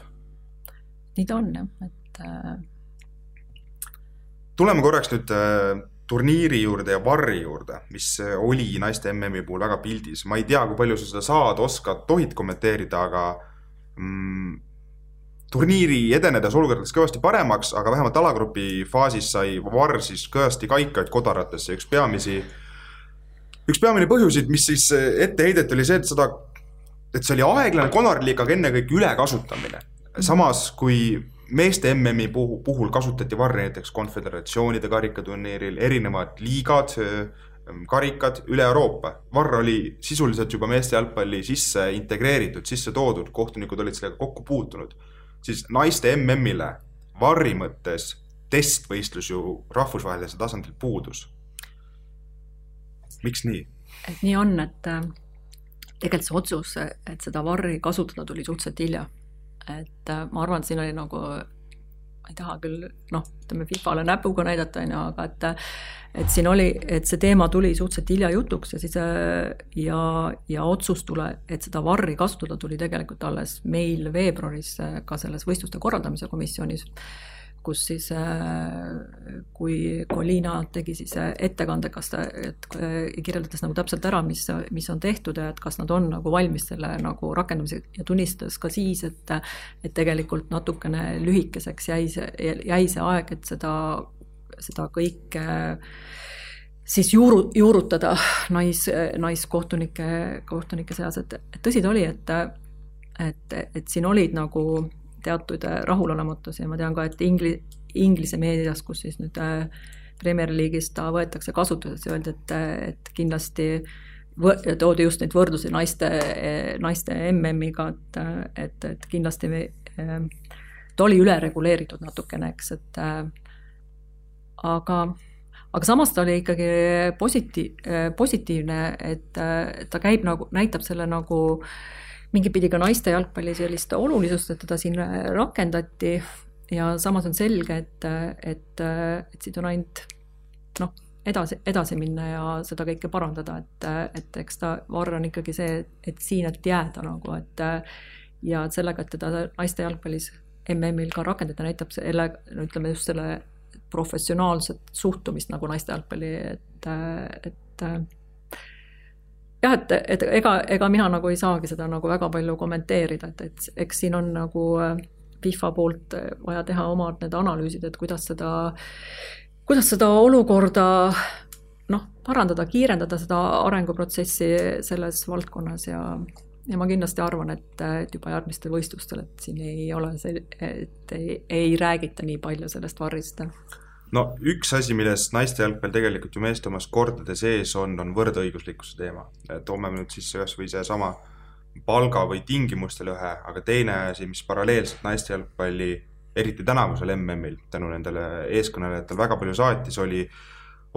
Nii ta on, et... Tuleme korraks nüüd turniiri juurde ja varri juurde, mis oli naiste MM-i puhul väga pildis. Ma ei tea, kui palju sa seda saad, oskad, tohid kommenteerida, aga turniiri edenedes olukordades kõvasti paremaks, aga vähemalt alagrupi faasis sai varr siis kõvasti kaikaid kodaratesse. Üks peamine põhjusid, mis siis ette heidet oli see, et see oli aeglane konarlik, aga enne kõik ülekasutamine. Samas, kui meeste MM-i puhul kasutati varri näiteks konföderatsioonide karikaturniiril, erinevad liigad, karikad üle Euroopa. Varr oli sisuliselt juba meeste jalgpalli sisse integreeritud, sisse toodud, kohtunikud olid sellega kokku puutunud. Siis naiste MM-ile varri mõttes testvõistlus ju rahvusvahelise tasandil puudus. Miks nii? Et nii on, et tegelikult see otsus, et seda varri kasutada tuli suhteliselt hilja. Et ma arvan, et siin oli nagu, ma ei taha küll, ütleme FIFAle näpuga näidata, aga et siin oli, et see teema tuli suhteliselt hilja jutuks ja siis ja otsus et seda varri kasutada tuli tegelikult alles meil veebruaris ka selles võistluste korraldamise komisjonis, kus siis, kui Liina tegi siis ettekande, kirjeldades nagu täpselt ära, mis on tehtud ja et kas nad on nagu valmis selle nagu rakendamise ja tunnistades ka siis, et tegelikult natukene lühikeseks jäi see aeg, et seda kõike siis juurutada naiskohtunike seas, et tõsi ta oli, et siin olid nagu teatud rahulolematus ja ma tean ka, et Inglise meedias, kus siis nüüd Premier League'is ta võetakse kasutuses ja öeldi, et kindlasti toodi just neid võrdlusi naiste MM-iga, et kindlasti ta oli üle reguleeritud natukene, eks, et aga samas ta oli ikkagi positiivne, et ta käib nagu, näitab selle nagu mingi pidi ka naiste jalgpalli sellist olulisust, et teda siin rakendati ja samas on selge, et siit on ainult edasi minna ja seda kõike parandada, et eks ta varr on ikkagi see, et siin et jääda nagu, ja sellega, et teda naiste jalgpallis MM-il ka rakendada, näitab selle, ütleme just selle professionaalset suhtumist nagu naiste jalgpalli, et jah, et ega mina nagu ei saagi seda nagu väga palju kommenteerida, et eks siin on nagu FIFA poolt vaja teha omad need analüüsid, et kuidas seda olukorda parandada, kiirendada seda arenguprotsessi selles valdkonnas ja ma kindlasti arvan, et juba järgmistel võistlustel, et siin ei ole et ei räägita nii palju sellest varrist. No üks asi, milles naiste jalgpall tegelikult ju meeste omas kordade sees on võrdõiguslikkuse teema. Toome nüüd siis ühes või see sama palga või tingimustel ühe, aga teine asi, mis paralleelselt naiste jalgpalli, eriti tänavusel MM-il, tänu nendele eeskõnelejatel väga palju saatis,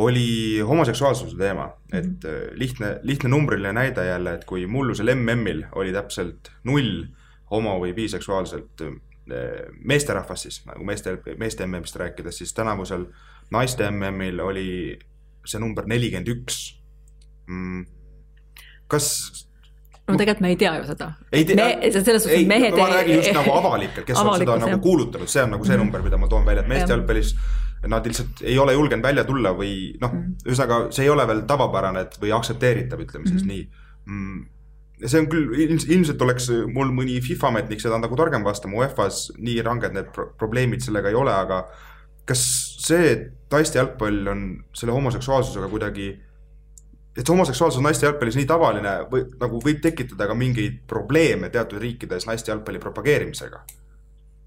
oli homoseksuaalsuse teema. Et lihtne numbriline näide jälle, et kui mullusel MM-il oli täpselt 0 homo- või biseksuaalselt meesterahvas siis, nagu meeste MM-ist rääkides, siis tänavusel naiste MM-il oli see number 41. Kas... No tegelikult me ei tea ju seda. Ma räägin just nagu avalikelt, kes on seda nagu kuulutanud, see on nagu see number, mida ma toon välja, et meeste jalgpallis nad lihtsalt ei ole julgenud välja tulla või ühesõnaga see ei ole veel tavapärane või aktsepteeritav, ütleme siis nii. See on küll, ilmselt oleks mul mõni FIFA-ametnik seda nagu targem vastama, UEFA-s nii ranged need probleemid sellega ei ole, aga kas see, et naiste jalgpall on selle homoseksuaalsusega kuidagi, et see homoseksuaalsus naiste jalgpallis nii tavaline nagu võib tekitada ka mingeid probleeme teatud riikides naiste jalgpalli propageerimisega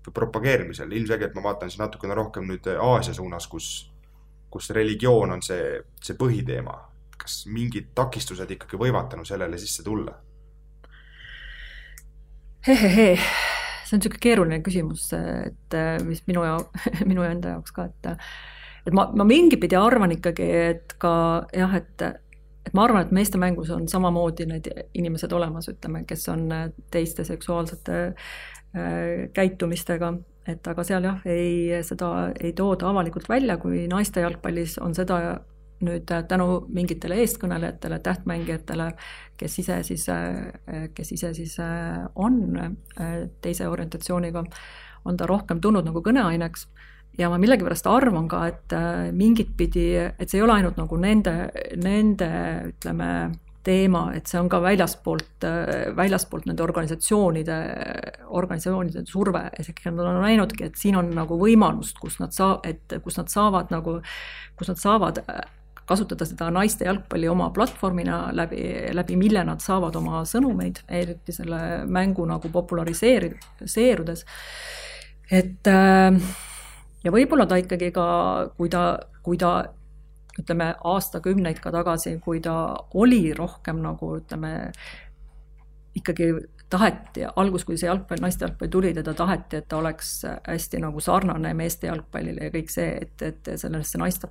või propageerimisel. Ilmselgelt ma vaatan siis natukene rohkem nüüd Aasia suunas, kus religioon on see põhiteema. Kas mingid takistused ikkagi võivad tänu sellele sisse tulla? See on niisugune keeruline küsimus, et mis minu enda jaoks ka, et ma mingi pidi arvan ikkagi, et ka jah, et ma arvan, et meeste mängus on samamoodi need inimesed olemas, ütleme, kes on teiste seksuaalsete käitumistega, et aga seal jah, seda ei tooda avalikult välja, kui naiste jalgpallis on seda nüüd tänu mingitele eestkõnelejatele, tähtmängijatele, kes ise siis on teise orientatsiooniga, on ta rohkem tulnud nagu kõneaineks. Ja ma millegipärast arvan ka, et mingit pidi, et see ei ole ainult nagu nende ütleme, teema, et see on ka väljaspoolt nende organisatsioonide surve. Nad on näinudki, et siin on nagu võimalust, kus nad saavad kasutada seda naiste jalgpalli oma platvormina, läbi mille nad saavad oma sõnumeid, eriti selle mängu nagu populariseerudes. Et ja võib-olla ta ikkagi ka, kui ta ütleme aastakümneid ka tagasi, kui ta oli rohkem nagu ütleme, ikkagi taheti, kui see naiste jalgpalli tuli, teda taheti, et ta oleks hästi nagu sarnane meeste jalgpallile ja kõik see, et sellesse naiste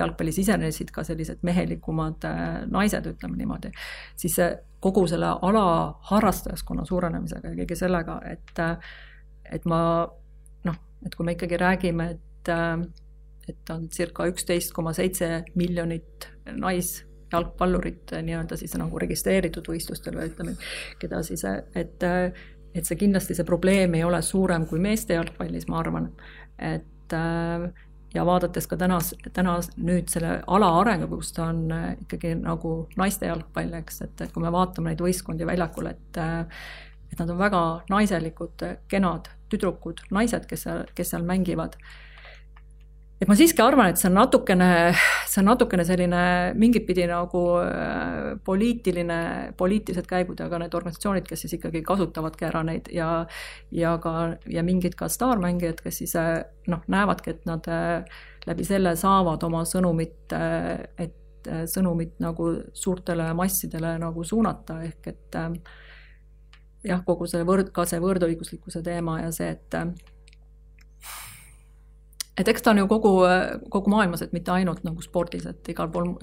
jalgpalli sisenesid ka sellised mehelikumad naised, ütleme niimoodi, siis kogu selle ala harrastajaskonna suurenemisega ja kõige sellega, et kui me ikkagi räägime, et on circa 11,7 miljonit naisjalgpallurit nii-öelda siis nagu registreeritud võistlustel või ütleme, keda siis, et see kindlasti see probleem ei ole suurem kui meeste jalgpallis, ma arvan, et ja vaadates ka täna nüüd selle ala arengu, kus ta on ikkagi nagu naiste jalgpall, eks, et kui me vaatame neid võistkondi väljakul, et nad on väga naiselikud, kenad tüdrukud, naised, kes seal mängivad. Et ma siiski arvan, et see on natukene selline mingit pidi nagu poliitilised käigud, aga need organisatsioonid, kes siis ikkagi kasutavadki ära neid ja mingid ka staarmängijad, kes siis näevadki, et nad läbi selle saavad oma sõnumit nagu suurtele massidele nagu suunata, ehk et jah, kogu see võrdõiguslikkuse teema ja see, et eks ta on ju kogu maailmas, et mitte ainult nagu spordis, et igal pool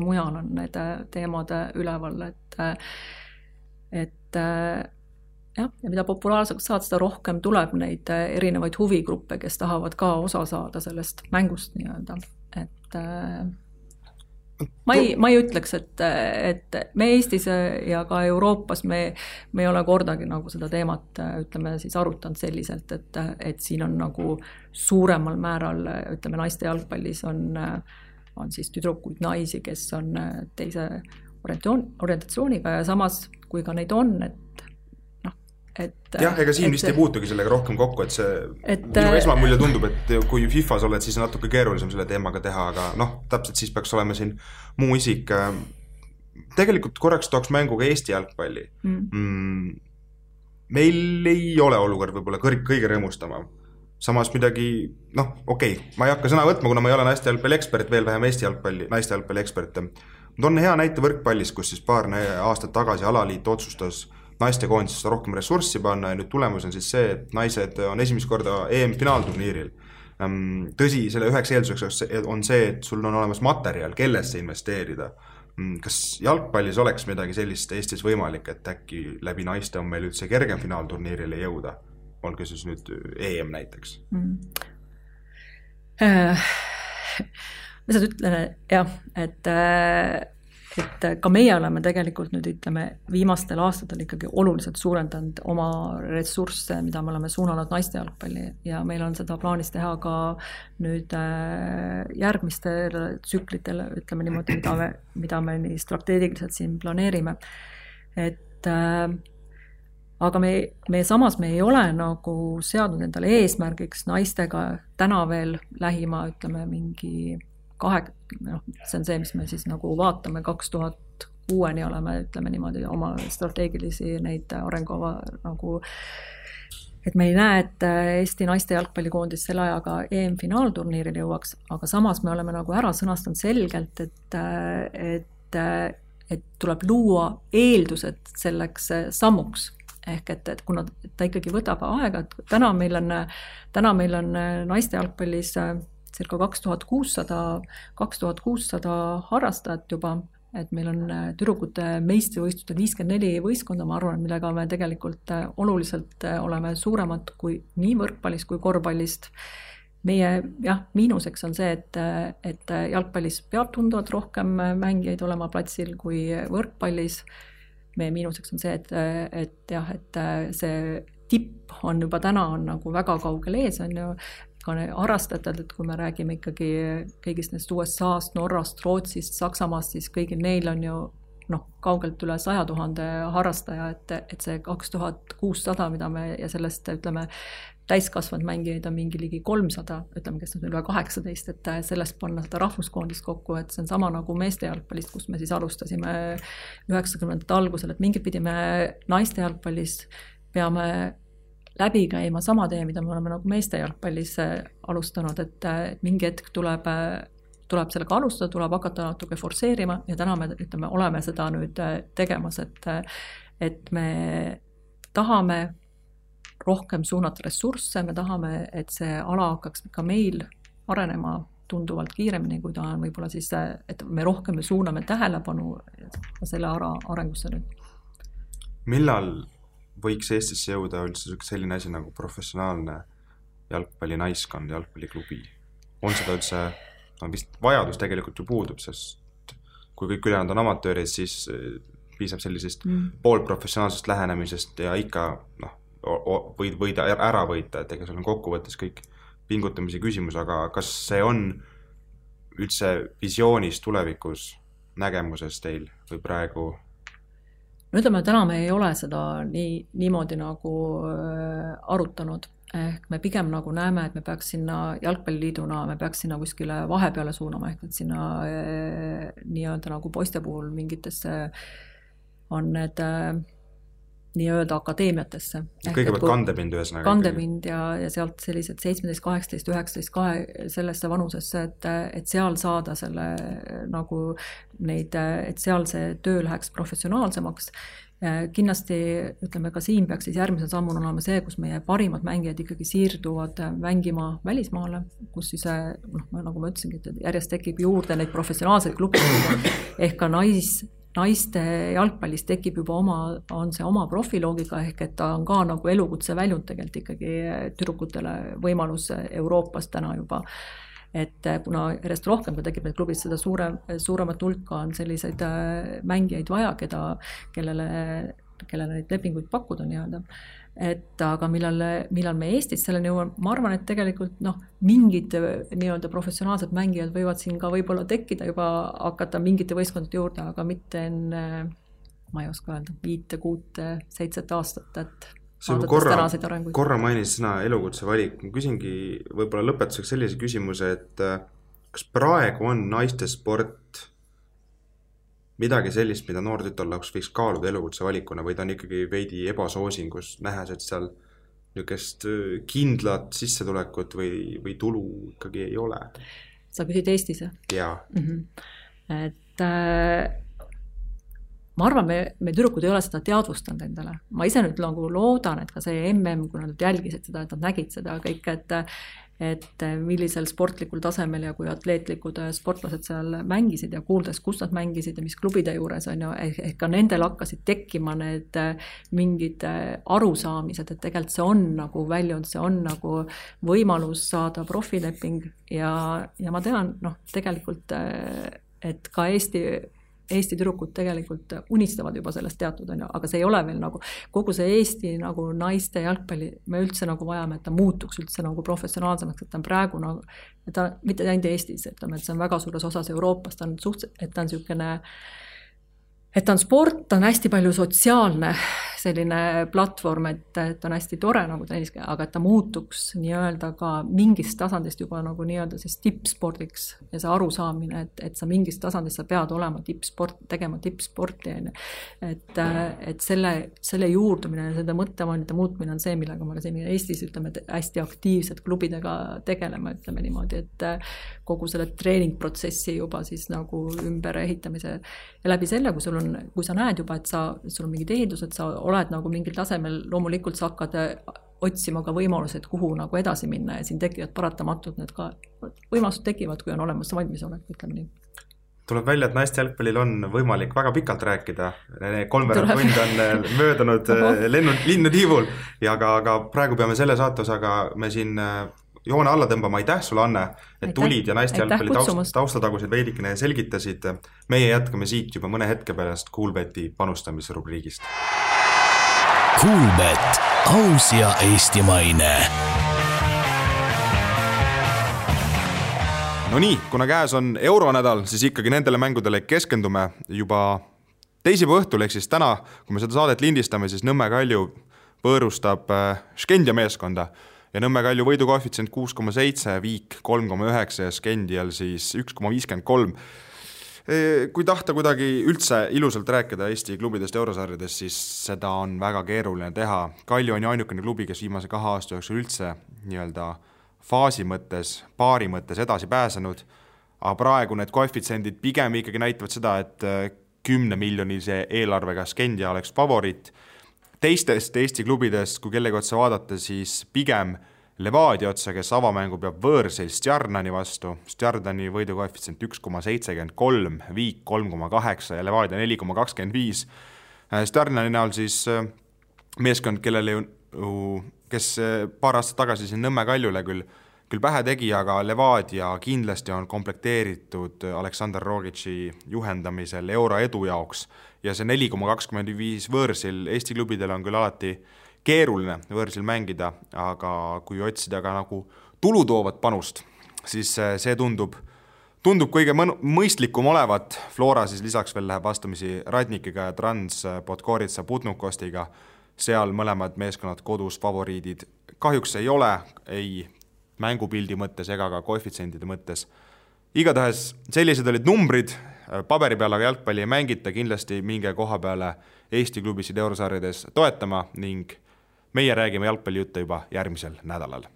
mujal on need teemad üleval, et jah, ja mida populaarseks saad, seda rohkem tuleb neid erinevaid huvigruppe, kes tahavad ka osa saada sellest mängust nii-öelda, et ma ei ütleks, et me Eestis ja ka Euroopas me ei ole kordagi nagu seda teemat, ütleme siis arutanud selliselt, et siin on nagu suuremal määral, ütleme naiste jalgpallis on siis tüdrukuid naisi, kes on teise orientatsiooniga ja samas, kui ka neid on, jah, ega siin vist ei puutugi sellega rohkem kokku, et minu esmamulje tundub, et kui FIFAs oled, siis on natuke keerulisem selle teemaga teha, aga täpselt siis peaks olema siin muu isik. Tegelikult korraks tooks mängu ka Eesti jalgpalli. Meil ei ole olukord võib-olla kõige rõõmustama. Samas midagi, okei, ma ei hakka sõna võtma, kuna ma ei ole naiste jalgpalli ekspert, veel vähem naiste jalgpalli ekspert. Ma toon hea näite võrkpallis, kus siis paar aastat tagasi alaliit otsustas naiste koondisest rohkem ressurssi panna ja nüüd tulemus on siis see, et naised on esimest korda EM-finaalturniiril. Tõsi, selle üheks eelduseks on see, et sul on olemas materjal, kellesse investeerida. Kas jalgpallis oleks midagi sellist Eestis võimalik, et äkki läbi naiste on meil üldse kergem finaalturniirile jõuda? Olge siis nüüd EM näiteks. Ma seda ütlen, jah, et ka meie oleme tegelikult nüüd ütleme viimastel aastatel ikkagi oluliselt suurendanud oma ressursse, mida me oleme suunanud naiste jalgpalli ja meil on seda plaanis teha ka nüüd järgmistel tsüklitel, ütleme niimoodi, mida me nii strateegiliselt siin planeerime. Et aga samas me ei ole nagu seadnud endale eesmärgiks naistega täna veel lähima, ütleme mingi see on see, mis me siis nagu vaatame 2006 oleme, ütleme niimoodi, oma strateegilisi neid arengukava nagu, et me ei näe, et Eesti naiste jalgpallikoondis selle ajaga EM-finaalturniiril jõuaks, aga samas me oleme nagu ära sõnastanud selgelt, et tuleb luua eeldused selleks sammuks. Ehk et kuna ta ikkagi võtab aega, et täna meil on naiste jalgpallis circa 2600 harrastajat juba et meil on tüdrukute meistrivõistlustel 54 võistkonda, ma arvan, millega me tegelikult oluliselt oleme suuremad kui nii võrkpallist kui korvpallist. Meie miinuseks on see, et jalgpallis peab tunduvalt rohkem mängijaid olema platsil kui võrkpallis. Meie miinuseks on see, et see tipp on juba täna on nagu väga kaugel ees, on ju, ka harrastatud, et kui me räägime ikkagi kõigist neist USA-st, Norrast, Rootsist, Saksamaast, siis kõigil neil on ju kaugelt üle 100 000 harrastaja, et see 2600, mida me ja sellest, ütleme, täiskasvanud mängijaid on mingi ligi 300, ütleme, kes on üle 18, et sellest panna seda rahvuskoondist kokku, et see on sama nagu meeste jalgpallist, kus me siis alustasime 90ndate algusel, et mingit pidi me naiste jalgpallis peame läbi käima sama tee, mida me oleme nagu meeste jalgpallis alustanud, et mingi hetk tuleb sellega alustada, tuleb hakata natuke forsseerima ja täna me ütleme, oleme seda nüüd tegemas, et me tahame rohkem suunata ressursse, me tahame, et see ala hakkaks ka meil arenema tunduvalt kiiremini, kui ta on võib-olla siis, et me rohkem suuname tähelepanu selle arengusse nüüd. Millal võiks Eestisse jõuda üldse selline asi nagu professionaalne jalgpallinaiskond, jalgpalliklubi? On seda üldse, vist vajadus tegelikult ju puudub, sest kui kõik ülejäänud on amatöörid, siis piisab sellisest poolprofessionaalsest lähenemisest ja ikka võid ära võita, et ega seal on kokkuvõttes kõik pingutamise küsimus, aga kas see on üldse visioonis tulevikus nägemuses teil või praegu? No ütleme, täna me ei ole seda niimoodi nagu arutanud. Ehk me pigem nagu näeme, et me peaks sinna jalgpalliliiduna, me peaks sinna kuskile vahepeale suunama, ehk et sinna nii-öelda nagu poiste puhul mingitesse on need nii-öelda akadeemiatesse. Kõigepealt kandepind ühesõnaga. Kandepind ja sealt sellised 17, 18, 19, sellesse vanusesse, et seal saada selle nagu neid, et seal see töö läheks professionaalsemaks. Kindlasti, ütleme ka siin peaks siis järgmise sammun olema see, kus meie parimad mängijad ikkagi siirduvad mängima välismaale, kus siis, nagu ma ütlesingi, et järjest tekib juurde neid professionaalseid klubisid, ehk ka naiste jalgpallis tekib juba on see oma profiloogika, ehk et ta on ka nagu elukutse väljund tegelikult ikkagi tüdrukutele võimalus Euroopas täna juba. Et kuna järjest rohkem, kui tekib need klubid, seda suuremat hulka on selliseid mängijaid vaja, kellele neid lepinguid pakkuda nii-öelda. Et aga millal me Eestis selleni jõuame, ma arvan, et tegelikult mingid nii-öelda professionaalsed mängijad võivad siin ka võib-olla tekkida, juba hakata mingite võistkondade juurde, aga mitte enne, ma ei oska öelda, 5, 6, 7 aastat, et korra mainis sõna elukutse valik. Ma küsingi võib-olla lõpetuseks sellise küsimuse, et kas praegu on naiste sport midagi sellist, mida noor tütarlaps võiks kaaluda elukutse valikuna või ta on ikkagi veidi ebasoosingus, nähes, et seal niisugust kindlat sissetulekut või tulu ikkagi ei ole? Sa küsid Eestis? Jaa. Et ma arvan, me tüdrukud ei ole seda teadvustanud endale. Ma ise nüüd loodan, et ka see kui nad jälgisid seda, et nad nägid seda kõik, et millisel sportlikul tasemel ja kui atleetlikud sportlased seal mängisid ja kuuldes, kus nad mängisid ja mis klubide juures on ju, ehk ka nendel hakkasid tekkima need mingid arusaamised, et tegelikult see on nagu väljund, see on nagu võimalus saada profileping ja ma tean, tegelikult, et ka Eesti tüdrukud tegelikult unistavad juba sellest teatud, aga see ei ole veel nagu, kogu see Eesti nagu naiste jalgpalli, me üldse nagu vajame, et ta muutuks üldse nagu professionaalsemaks, et ta on praegu nagu, et ta mitte ainult Eestis, et see on väga suures osas Euroopas, et ta on niisugune, et ta on sport, ta on hästi palju sotsiaalne selline platvorm, et ta on hästi tore nagu tenniske, aga et ta muutuks nii-öelda ka mingist tasandist juba nagu nii-öelda siis tippspordiks ja see arusaamine, et sa mingist tasandist sa pead olema tegema tippsporti. Et selle juurdumine ja selle mõttevaanide muutmine on see, millega me siin Eestis ütleme, et hästi aktiivsed klubidega tegelema, ütleme niimoodi, et kogu selle treeningprotsessi juba siis nagu ümber ehitamise ja läbi selle, kui sa näed juba, et sul on mingid ehitused, sa oled nagu mingil tasemel, loomulikult sa hakkad otsima ka võimalused, kuhu nagu edasi minna ja siin tekivad paratamatult need ka võimalused tekivad, kui on olemas valmisolek, ütleme nii. Tuleb välja, et naiste jalgpallil on võimalik väga pikalt rääkida. 3 tund on möödunud linnutiivul ja aga praegu peame selle saatosaga me siin joone alla tõmbama. Aitäh sulle, Anne, et tulid ja naiste jalgpalli taustatagused veidikene selgitasid. Meie jätkame siit juba mõne hetke pärast Kuulbeti panustamisrubriigist. Kuulbet, aus ja eestimaine. No nii, kuna käes on euronädal, siis ikkagi nendele mängudele keskendume juba teisipäeva õhtul, ehk siis täna, kui me seda saadet lindistame, siis Nõmme Kalju võõrustab Skendia meeskonda ja Nõmme Kalju võidukoefitsient 6,7, Viik 3,9 ja Skendial siis 1,53. Kui tahta kuidagi üldse ilusalt rääkida Eesti klubidest eurosarjades, siis seda on väga keeruline teha. Kalju on ju ainukene klubi, kes viimase 2 aasta jooksul üldse nii-öelda faasi mõttes, paari mõttes edasi pääsenud, aga praegu need koefitsendid pigem ikkagi näitavad seda, et 10 miljonise eelarvega Skendia oleks favoriit. Teistest Eesti klubidest, kui kellegi otsa vaadata, siis pigem Levadia otsa, kes avamängu peab võõrsil Stjarnani vastu. Stjarnani võidukoefitsient 1,73, Viik 3,8 ja Levadia 4,25. Stjarnani näol siis meeskond, kellele kes paar aastat tagasi siin Nõmme Kaljule küll pähe tegi, aga Levadia kindlasti on komplekteeritud Aleksandr Rogitši juhendamisel euro edu jaoks ja see 4,25 võõrsil Eesti klubidel on küll alati keeruline võõrsil mängida, aga kui otsida ka nagu tulutoovat panust, siis see tundub kõige mõistlikum olevat. Flora siis lisaks veel läheb vastamisi Radnikiga ja Trans Podgorica Putnukostiga. Seal mõlemad meeskonnad kodus favoriidid kahjuks ei ole, ei mängupildi mõttes ega ka koefitsendide mõttes. Igatahes sellised olid numbrid, paberi peal aga jalgpalli ei mängita, kindlasti minge koha peale Eesti klubisid eurosarjades toetama ning meie räägime jalgpallijutte juba järgmisel nädalal.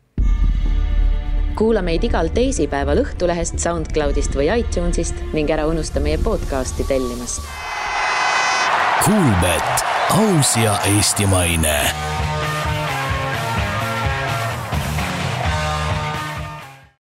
Kuula meid igal teisipäeval Õhtulehest, SoundCloudist või iTunesist ning ära unusta meie podcasti tellimast. Kuulbet, aus ja eestimaine.